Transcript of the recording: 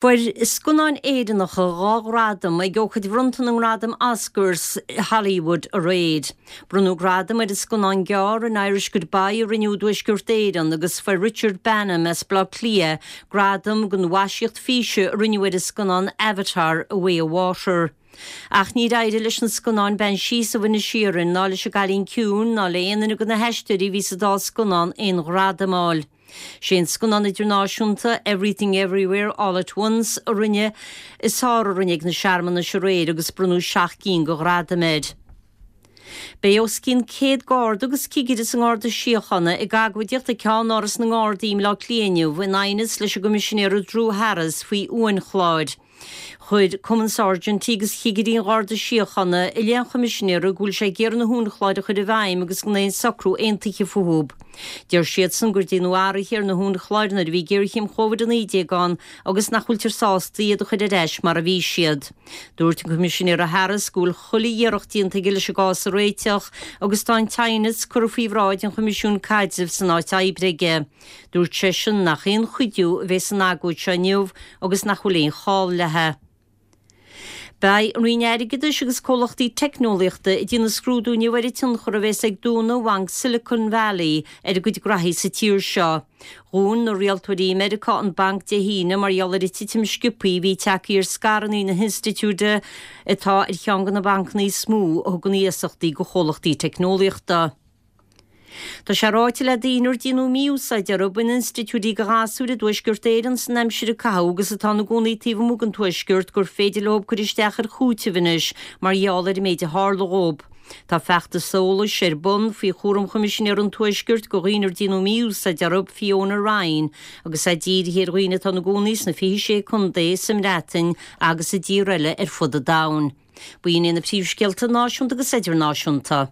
Fuair scannáin Éireannacha 2 ghradam ag ócáid bhronnta na ngradam Oscars i Hollywood aréir. Bronnadh gradam ar an scannán gearr An Irish Goodbye a rinneadh i dTuaisceart Éireann agus fuair Richard Baneham as Baile Átha Cliath gradam don mhaisíocht físe a rinneadh ar an scannán Avatar, A Way of Water. Ach níor éirigh leis na scannáin Banshees of Inisherin ná leis An gCailín Ciúin ná le aon duine de na haisteoirí a bhí sa dá scannán aon ghradam a fháil. Sé an scannán idirnáisiúnta Everything Everywhere All at Once a rinne is fearr a rinne ag na searmanais aréir agus bronnadh 7 gcinn de ghradaim air. Beidh os cionn 100 garda agus cigire sa nGarda Síochána ag agóidíocht ag ceannáras na nGardaí i mBleá Cliath inniu in aighneas leis an gCoimisinéir Drew Harris faoi uainchláir. Chuir Cumann Sáirsintí agus Chigirí an Gharda Síochána i leith an Choimisinéara go bhfuil sé ag iarraidh na huainchláir a chur i bhfeidhm agus gan aon socrú aontaithe fúthu. Deir siadsan gur déanadh athruithe ar na huainchláir nuair a bhí géarchéim Covid-19 ann agus nach bhfuiltear sásta iad a chur ar ais mar a bhí siad. Dúirt an Coimisinéara Harris go bhfuil chuile iarracht déanta aige leis an gcás a réiteach agus tá an t-aighneas curtha faoi bhráid an Choimisiúin Caidrimh san Áit Oibre aige. Dúirt seisean nach aon chuidiú a bheidh san agóid seo inniu agus nach bhfuil aon chall léi. Beidh an Roinn Airgeadais agus comhlachtaí teicneolaíochta ag déanamh scrúdú inniu ar an tionchar a bheas ag dúnadh Bhanc Silicon Valley ar a gcuid graithí sa tír seo. Dhún na rialtóirí i Meiriceá an banc Dé hAoine mar gheall ar an titim sciobthaí a bhí tagtha ar scaireanna na hinstitiúide atá ar cheann de na bancanna is mó a thugann iasachtaí do chomhlachtaí teicneolaíochta. Tá sé ráite le daoine ar déanadh mí-úsáid orthu in institiúidí do ghasúir i dTuaisceart Éireann san aimsir a caitheadh agus atá ina gcónaí taobh amuigh den Tuaisceart gur féidir leo cur isteach ar chúiteamh anois mar gheall ar an méid a tharla dhóibh. Tá feachtas eolais ar bun faoi chúram Choimisinéir an Tuaiscirt do dhaoine ar déanadh mí-úsáid orthu, Fiona Ryan, agus é dírithe ar dhaoine atá ina gcónaí sna 26 contae, sa mBreatain agus i dtíortha eile ar fud an domhain. B'in iad na príomhscéalta náisiúnta agus idirnáisiúnta.